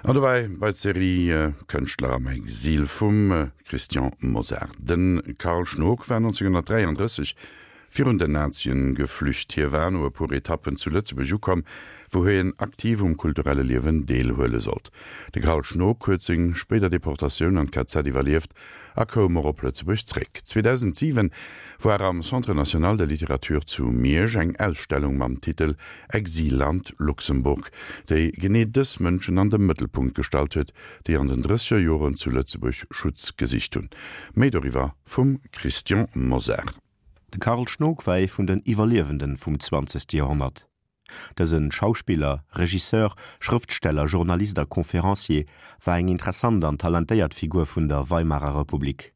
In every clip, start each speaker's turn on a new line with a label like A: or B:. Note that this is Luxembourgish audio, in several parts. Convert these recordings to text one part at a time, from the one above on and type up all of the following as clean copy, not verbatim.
A: An dobäi bei d'Serie Kënschtler am Exil vum Christian Mosar. De Karl Schnog war 1933 virun den Nazien geflücht. Hie war no e puer Etappen zu Lëtzebuerg ukomm, wou hien aktiv um kulturelle Liewen deelhuele sollt. De Karl Schnog huet seng spéider Deportatioun an d'KZ iwwerlieft a koum och op Lëtzebuerg zréck. 2007 war am Centre National de Littérature zu Miersch eng Ausstellung mam Titel Exilland Luxemburg, déi genee dës Mënschen an de Mëttelpunkt gestallt huet, déi an den drësseger Joren zu Lëtzebuerg Schutz gesicht hunn. Méi doriwwer vum Christian Mosar.
B: De Karl Schnog war ee vun den Iwwerliewenden vum zwanzegste Joerhonnert. Dëse Schauspiller, Regisseur, Schrëftsteller, Journalist a Conférencier war eng interessant an talentéiert Figur vun der Weimarer Republik.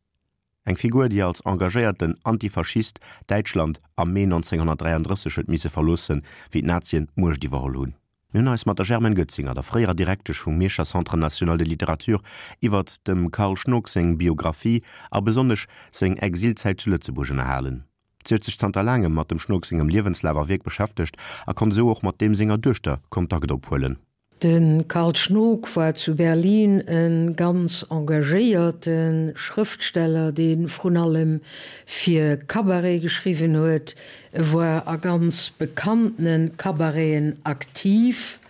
B: Eng Figur, déi als engagéierten Antifaschist Däitschland am Mee 1933 huet misse verloossen, wéi d'Nazien d'Muecht iwwerholl hunn. Mir hunn eis mat der Germaine Goetzinger, der fréierer Direktesch vum Mierscher Centre national de littérature, iwwert dem Karl Schnog seng Biographie a besonnesch seng Exilzäit zu Lëtzebuerg ënnerhalen. Si huet sech zanter laangem mat dem Schnog sengem Liewenslaf a Wierk beschäftegt a konnt esou och mat deem senger Duechter Kontakt ophuelen.
C: De Karl Schnog war zu Berlin e ganz engagéierte Schrëftsteller, dee vrun allem fir Cabaret geschriwwen huet. E war a ganz bekanntene Cabareten aktiv,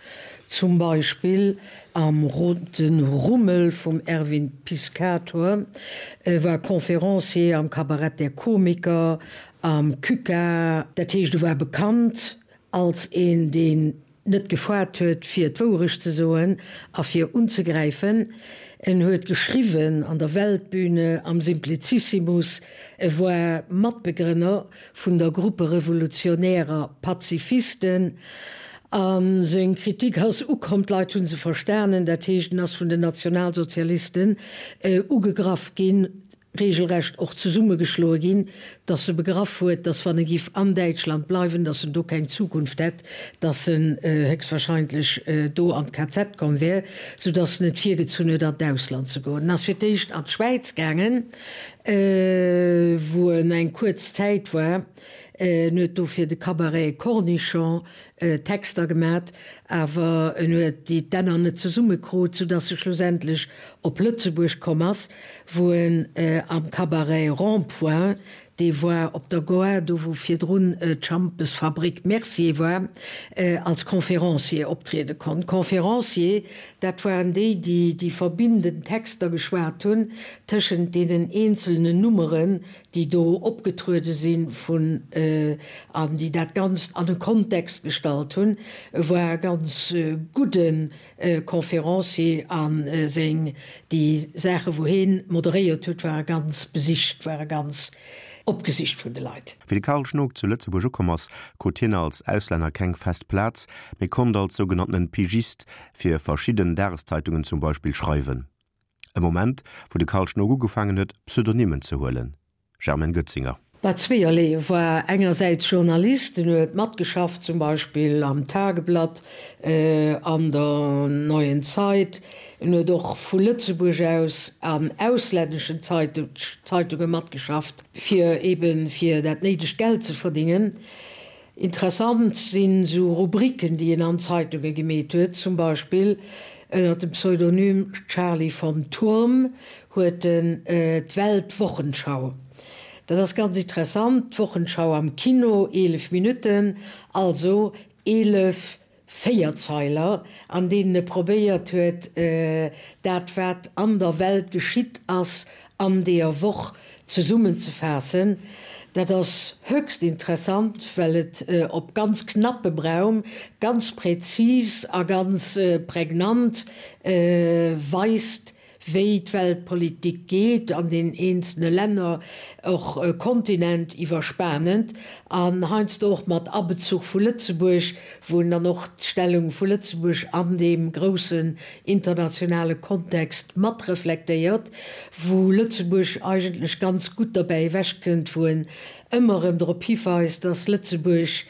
C: zum Beispill am Roten Rummel vum Erwin Piscator. E war Conférencier am Kabarett der Komiker, am Küka. Dat heescht, e war bekannt als een, deen net gefaart huet fir d'Wourecht ze soen a fir unzegräifen. En huet geschriwwen an der Weltbühne, am Simplicissimus, e war Matbegrënner vun der Gruppe Revolutionärer Pazifisten a seng Kritik ass ukomm, d'Leit hu se verstanen, dat heescht en ass vun den Nationalsozialisten ugegraff ginn. regelrecht och zesummegeschloe ginn, datt e begraff huet, datt wann e giff an Däitschland bleiwen, datt en do keng Zukunft hätt, datt en héchstwahrscheinlech do an d'KZ komm wär, soudatt en et virgezunn huet an d'Ausland ze goen. En ass fir d'éischt an d'Schwäiz gaangen, wou en eng kuerz Zäit war. En huet do fir de Cabaret Cornichon Texter gemat, awer en huet déi d'Enner net zesumme krut, soudass e schlussendlech op Lëtzebuerg komm ass, wou en am Cabaret Rond-Point, dee war op der Goar, do wou virdrun d'Schampesfabrik Mercier war, als Conférencier optriede konnt. Conférencier, dat waren déi, déi déi verbindend Texter geschwat hunn tëschent deenen eenzelnen Nummeren, déi do opgetruede si vun an déi dat Ganzt an e Kontext gestallt hunn. E war e ganz gudde Conférencier a seng, déi Saache wou hee moderéiert huet, ware ganz besicht, ware ganz opgesicht vun de Leit.
B: Wéi de Karl Schnog zu Lëtzebuerg ukomm ass, krut hien als Auslänner keng fest Plaz, mee konnt als sougenanntenen Pigist fir verschidden Dageszeitungen zum Beispill schreiwen. E Moment, wou de Karl Schnog ugefaangen huet, Pseudonymen ze huelen. Germaine Goetzinger.
C: War zweeërlee, e war engersäits Journalist, en huet matgeschafft zum Beispill am Tageblatt, an der Neuen Zeit, en huet och vu Lëtzebuerg aus an auslänneschen Zeitunge matgeschafft, fir eben fir dat néidegt Geld ze verdingen. Interessant sinn esou Rubriken, déi en an Zeitunge gemeet huet, zum Beispill ënner dem Pseudonym Charlie vom Turm huet en d'Weltwochenschau. Dat ass ganz interessant, d'Wochenschau am Kino, 11 Minutten, also 11 Véierzeiler, an deenen e probéiert huet, dat wat an der Welt geschitt ass an deeër Woch zesummenzefaassen. Dat ass höchst interessant, well et op ganz knappem Raum ganz präzis a ganz prägnant weist, wéi d'Weltpolitik geet an den eenzelne Länner, och kontinentiwwerspanend an heiansdo och mat Abezuch vu Lëtzebuerg, wou en dann och d'Stellung vu Lëtzebuerg an deem groussen internationale Kontext mat reflektéiert, wou Lëtzebuerg eigentlech ganz gutt derbäi ewechkënnt, wou en ëmmer erëm drop hiweist, dass Lëtzebuerg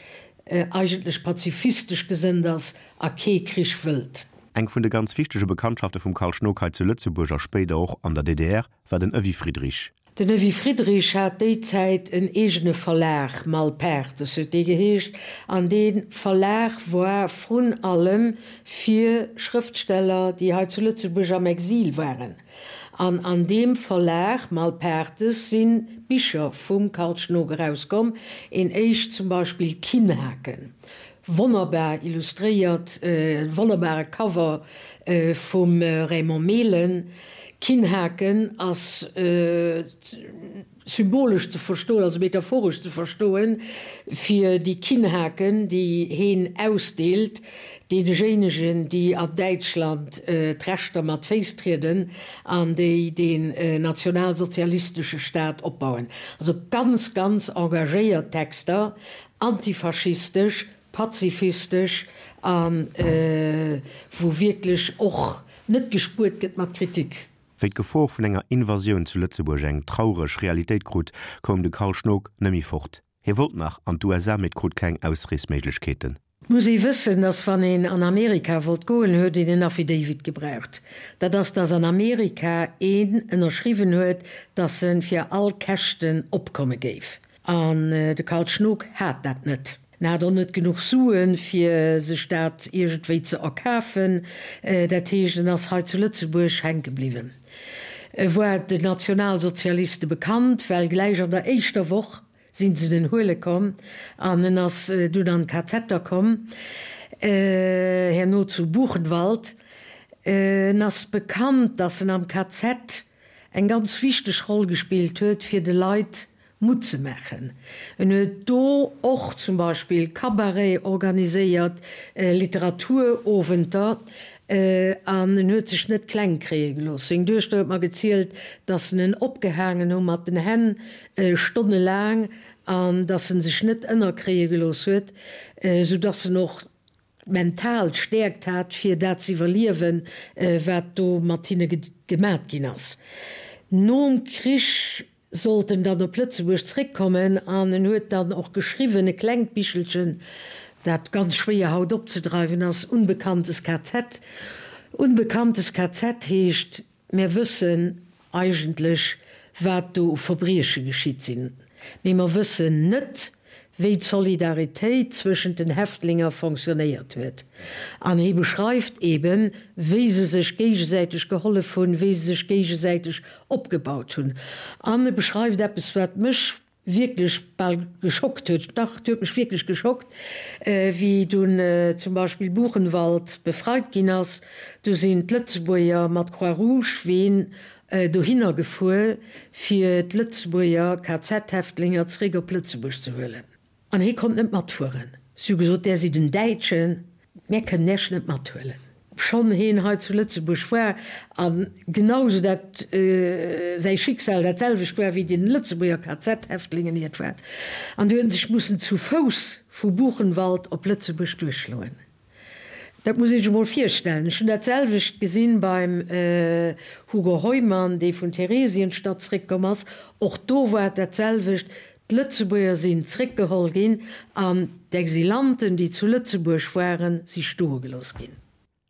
C: eigentlech pazifistesch gesënnt ass a kee Krich wëllt.
B: Eng vun de ganz wichtege Bekanntschafte vum Karl Schnog hei zu Lëtzebuerg a spéider och an der DDR war den Evy Friedrich.
C: Den Evy Friedrich hat déi Zäit en eegene Verlag, Malpaertes huet dee geheescht, an dee Verlag war vrun allem fir Schrëftsteller, déi hei zu Lëtzebuerg am Exil waren. An an deem Verlag Malpaertes si Bicher vum Karl Schnog erauskomm, een éischt zum Beispill Kinnhaken, wonnerbar illustréiert, e wonnerbare Cover vum Raymond Mehlen. Kinnhaken ass symbolesch ze verstoen, also metaphoresch ze verstoen, fir déi Kinnhaken, déi heen ausdeelt, deenejéinegen, déi an Däitschland d'Rechter mat Féiss trieden an déi deen nationalsozialistesche Staat opbauen. Also ganz, ganz engagéiert Texter, antifaschistesch, pazifistesch a wou wierklech och net gespuert gëtt mat Kritik.
B: Wéi d'Gefor vun enger Invasioun zu Lëtzebuerg eng traureg Realitéit krut, koum de Carl Schnog nëmmi fort. Hie wollt nach an d'USA, mee krut keng Ausreesméiglechkeeten.
C: Et muss ee wëssen, dass wann een an Amerika wollt goen, huet een en Affidavit gebraucht. Dat ass, dass an Amerika een ënnerschriwwen huet, dass en fir all Käschten opkomme géif. An de Karl Schnog hat dat net. En hat och net genuch Suen, fir sech dat iergendwéi ze erkafen. Dat heescht, en ass hei zu Lëtzebuerg hänke bliwwen. E war den Nationalsozialiste bekannt, well gläich an der éischter Woch si se en huele komm an en ass dunn an d'KZer komm, herno zu Buchenwald. En ass bekannt, datt en am KZ eng ganz wichteg Roll gespillt huet, fir de Leit Mutt ze maachen. En huet do och zum Beispill Cabaret organiséiert, Literaturowenter, an en huet sech net kleng kréie gelooss. Seng Duechter huet mer gezielt, datt en en opgehaangen hu mat den Hänn stonnelaang an datt en sech net ënnerkréie gelooss huet, sou datt en och mental d'Stäerkt hat, fir dat ze iwwerliewen, wat do mat hinne gemat ginn ass. Nom Krich sollt en dann op Lëtzebuerg zréckkommen an en huet dann och geschriwwen, e klengt Bichelchen, dat ganz schwéier haut opzedreiwen ass, Unbekanntes KZ. Unbekanntes KZ heescht, Mär wëssen eigentlech, wat do u Verbrieche geschitt sinn, mee mer wëssen net, wéi d'Solidaritéit zwëschent den Häftlinger fonctionnéiert huet. An hie beschreift eben, wéi se sech géigesäiteg gehollef hunn, wéi se sech géigesäiteg opgebaut hunn. An e beschreift eppes, wat mech wierklech bal geschockt huet, dach, et huet mech wierklech geschockt, wéi dunn zum Beispill Buchenwald befreit ginn ass, du sinn d'Lëtzebuerger mat Croix-Rouge-Ween dohinner gefuer, fir d'Lëtzebuerger KZ-Häftlinger zeréck op Lëtzebuerg ze huelen. An hie konnt net matfueren. Si hu gesot, Där sidd en Däitschen, mär kënnen Iech net mathuelen. Obschonn hien hei zu Lëtzebuerg war a genausou dat säi Schicksal dat selwecht war wéi den Lëtzebuerger KZ-Häftlingen hiert war. An du huet en sech mussen zu Fouss vu Buchenwald op Lëtzebuerg duerchschloen. Dat muss ee sech emol virstellen. Ech hunn dat selwecht gesinn beim Hugo Heumann, dee vun Theresienstadt zréckkomm ass. Och do war et dat selwecht. D'Lëtzebuerger sinn zréckgeholl ginn an d'Exilanten, déi zu Lëtzebuerg waren, si stoe gelooss ginn.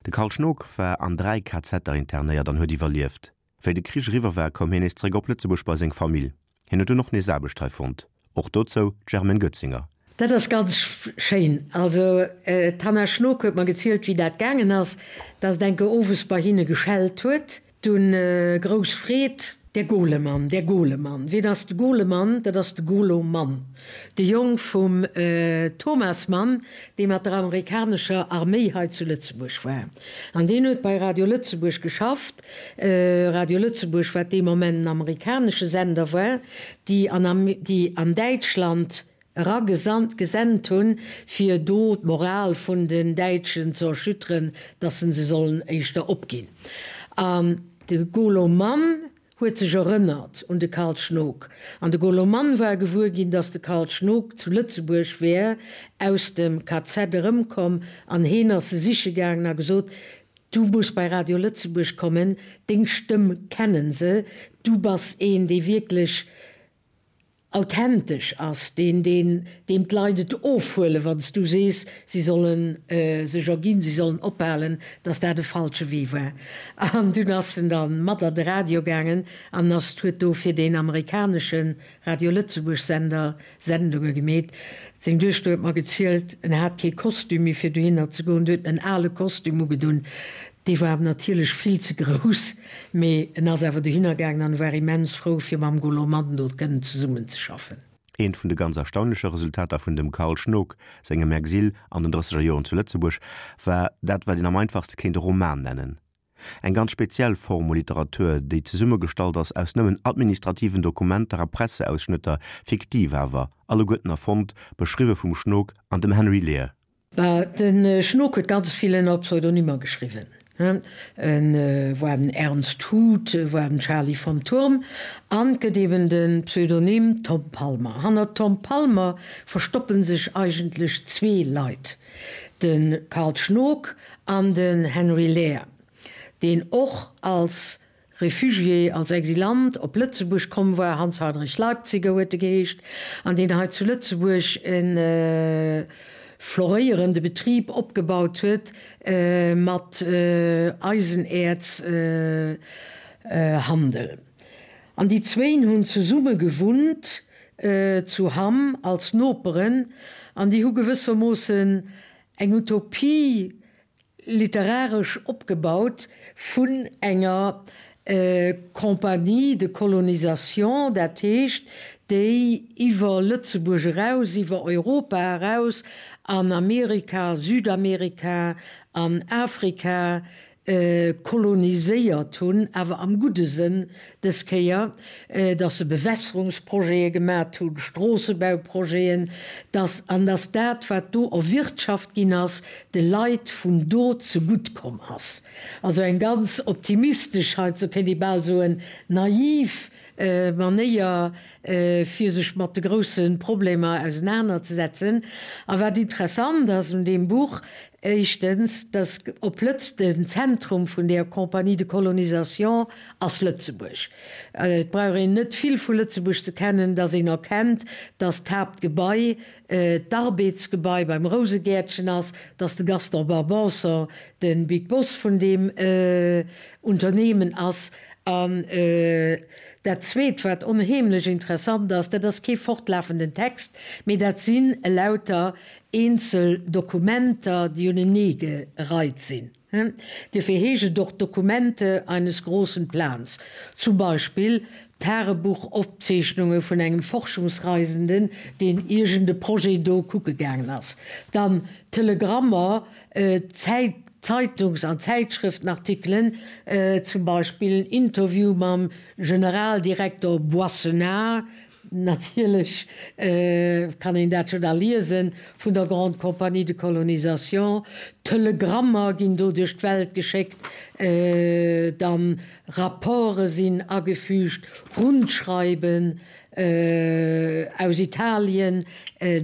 B: De Karl Schnog war an 3 KZer internéiert an huet iwwerlieft. Wéi de Krich eriwwer war, koum hien nees zeréck op Lëtzebuerg bei seng Famill. Hien huet dunn och nees Aarbecht hei fonnt. Och dozou d'Germaine Goetzinger.
C: Dat ass ganz schéin. Also d'Hanna Schnog huet mer gezielt, wéi dat gaangen ass, dass et enke owes bei hinne geschellt huet. Dunn grouss Freed, Der Golemann, der Golemann. Wien ass de Golemann? Dat ass de Golo Mann, de Jong vum Thomas Mann, dee mat der amerikanescher Arméi hei zu Lëtzebuerg war. An deen huet bei Radio Lëtzebuerg geschafft. Radio Lëtzebuerg, wat dee Moment en amerikanesche Sender war, déi an, déi an Däitschland eragesandt, gesent hunn, fir do d'Moral vun den Däitschen ze erschütteren, dass se se sollen éischter opginn. An de Golo Mann huet sech erënnert un de Karl Schnog. An de Golo Mann war gewuer ginn, dass de Karl Schnog zu Lëtzebuerg wär, aus dem KZ erëmkomm, an heen ass se siche gaangen a gesot, Du muss bei Radio Lëtzebuerg kommen, deng Stëmm kennen se, du bass een, dee wierklech. authentesch ass, deen, deen, deem d'Leit et ofhuelen, wann s du sees, si solle sech erginn, si sollen ophalen, dass dat e falsche Wee war. An dunn ass en da mat an de Radio gaangen an ass, huet do fir deen amerikanesche Radio Lëtzebuerg Sender Sendunge gemeet. Seng Duechter huet mer gezielt, en hat kee Kostüm méi fir dohinner ze goen, du huet en ale Kostüm ugedunn, dee war em natierlech vill ze grouss, mee en ass awer dohinner gaangen an war immens frou fir mam Golo Mann do kënnen zesummen ze schaffen.
B: Eent vun de ganz erstaunleche Resultater vun dem Carl Schnook sengem Exil an den drësseger Joren zu Lëtzebuerg war dat, wat een am einfachste kéint e Roman nennen. Eng ganz speziell Form u Literatur, déi zesummegestallt ass aus nëmmen administrativen Dokumenter a Presseausschnëtter, fiktiv awer, alleguerten erfonnt, beschriwwe vum Schnook an dem Henry Lear.
C: Bah, de Schnook huet ganz vill ënner Pseudonymer geschriwwen. E war den Ernst Huth, e war den Charlie von Thurm an et gëtt eben de Pseudonym Tom Palmer. Hanner Tom Palmer verstoppe sech eigentlech zwee Leit, de Carl Schnook an den Henry Lear, deen och als Refugié, als Exilant op Lëtzebuerg komm war, Hans Heinrich Leipziger huet e geheescht, an deen hei zu Lëtzebuerg e floréierende Betrib opgebaut huet mat Eisenäerzhandel. An déi zwéin hunn zesumme gewunnt zu Hamm als Noperen an déi hu gewëssermoossen eng Utopie literaresch opgebaut vun enger Compagnie de colonisation, dat heescht, déi iwwer Lëtzebuerg eraus, iwwer Europa eraus an Amerika, Südamerika an Afrika koloniséiert hunn, awer am gudde Sënn dës Kéier, dass se Bewässerungsprojete gemat hunn, Stroossebauprojeten, dass, an dass dat, wat do erwirtschaft ginn ass, de Leit vun do zegutt komm ass. Also eng ganz optimistesch, heiansdo kéint ee bal soen naiv Manéier, fir sech mat de grousse Problemer ausenanerzesetzen. A wat interessant ass un deem Buch, éischtens, dass op Lëtz den Zentrum vun där Compagnie de colonisation ass Lëtzebuerg. Et brauch een net vill vu Lëtzebuerg ze kennen, dass een erkennt, dass d'Haaptgebai d'Arbeds-Gebai beim Rousegäertchen ass, dass de Gaston Barbanson de Big Boss vun deem Unternehmen ass. An dat Zweet, wat onheemlech interessant ass, dat ass kee fortlafenden Text, mee dat sinn elauter eenzel Dokumenter, déi uneneegereit sinn. Duerfir heescht et och Dokumente eines großen Plans. Zum Beispill Tagebuchopzeechnunge vun engem Forschungsreisenden, deen iergend e Projet do kucke gaangen ass. Dann Telegrammer, Zeitungs an Zäitschrëftenartikelen, zum Beispill en Interview mam Generaldirektor Boissenard, Natierlech kann een dat jo da liesen, vun der Grande Compagnie de Colonisation. Telegrammer ginn do duerch d'Welt geschéckt, dann Rapporte sinn agefügt, Rundschreiben aus Italien,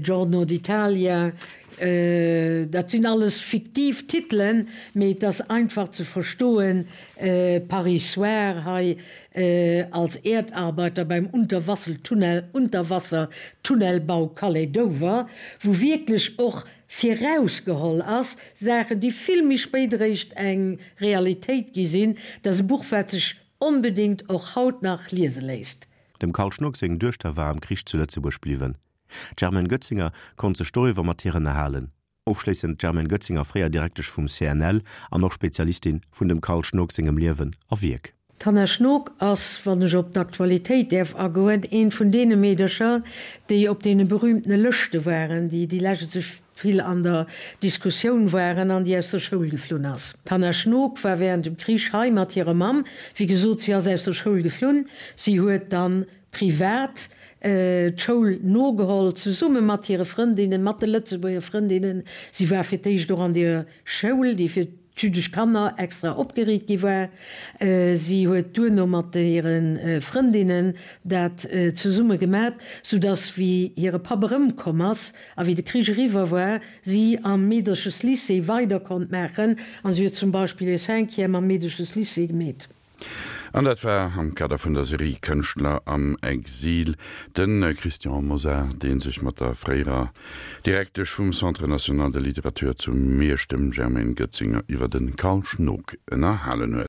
C: Giorno d'Italia. Dat sinn alles fiktiv Titelen, mee et ass einfach ze verstoen, Paris Soir hei, Als Erdarbeiter beim Unterwassertunnelbau Calais-Dover, wou wierklech och virausgeholl ass, Saachen, déi vill méi spéit eréischt eng Realitéit gi sinn. Dat ass e Buch, wat sech onbedéngt och haut nach liese léisst.
B: Dem Carl Schnock seng Duechter war am Krich zu Lëtzebuerg bliwwen. D'Germaine Goetzinger konnt sech doriwwer mat hir ënnerhalen. Ofschléissend d'Germaine Goetzinger, fréier Direktesch vum CNL an och Spezialistin vun dem Carl Schnook sengem Liewen a Wierk.
C: D'Hanna Schnook ass, wann ech op d'Aktualitéit däerf agoen, eent vun deene Meedercher, déi op deene berühmtene Lëschte waren, déi déi lescht esou vill an der Diskussioun waren an déi aus der Schoul geflunn ass. D'Hanna Schnook war während dem Krich hei mat hirer Mamm. Wéi gesot, si ass aus der Schoul geflunn. Si huet dann privat d'Schoul nogeholl, zesumme mat hire Frëndinnen, mat de Lëtzebuerger Frëndinnen. Si war fir d'éischt och an deer Schoul, déi fir d'jüddesch Kanner extra opgeriit gi war. Si huet duerno mat hire Frëndinnen dat zesumme gemat, soudass, wéi hire Papp erëmkomm ass a wéi de Krich eriwwer war, si am Meedercheslycée weider konnt maachen. A si huet zum Beispill hir Cinquième am Meedercheslycée gemeet.
A: An dat war am Kader vun der Serie Kënschtler am Exil de Christian Mosar, dee sech mat der fréierer Direktesch vum Centre national de littérature zu Miersch, dem Germaine Goetzinger, iwwer de Carl Schnook ënnerhalen huet.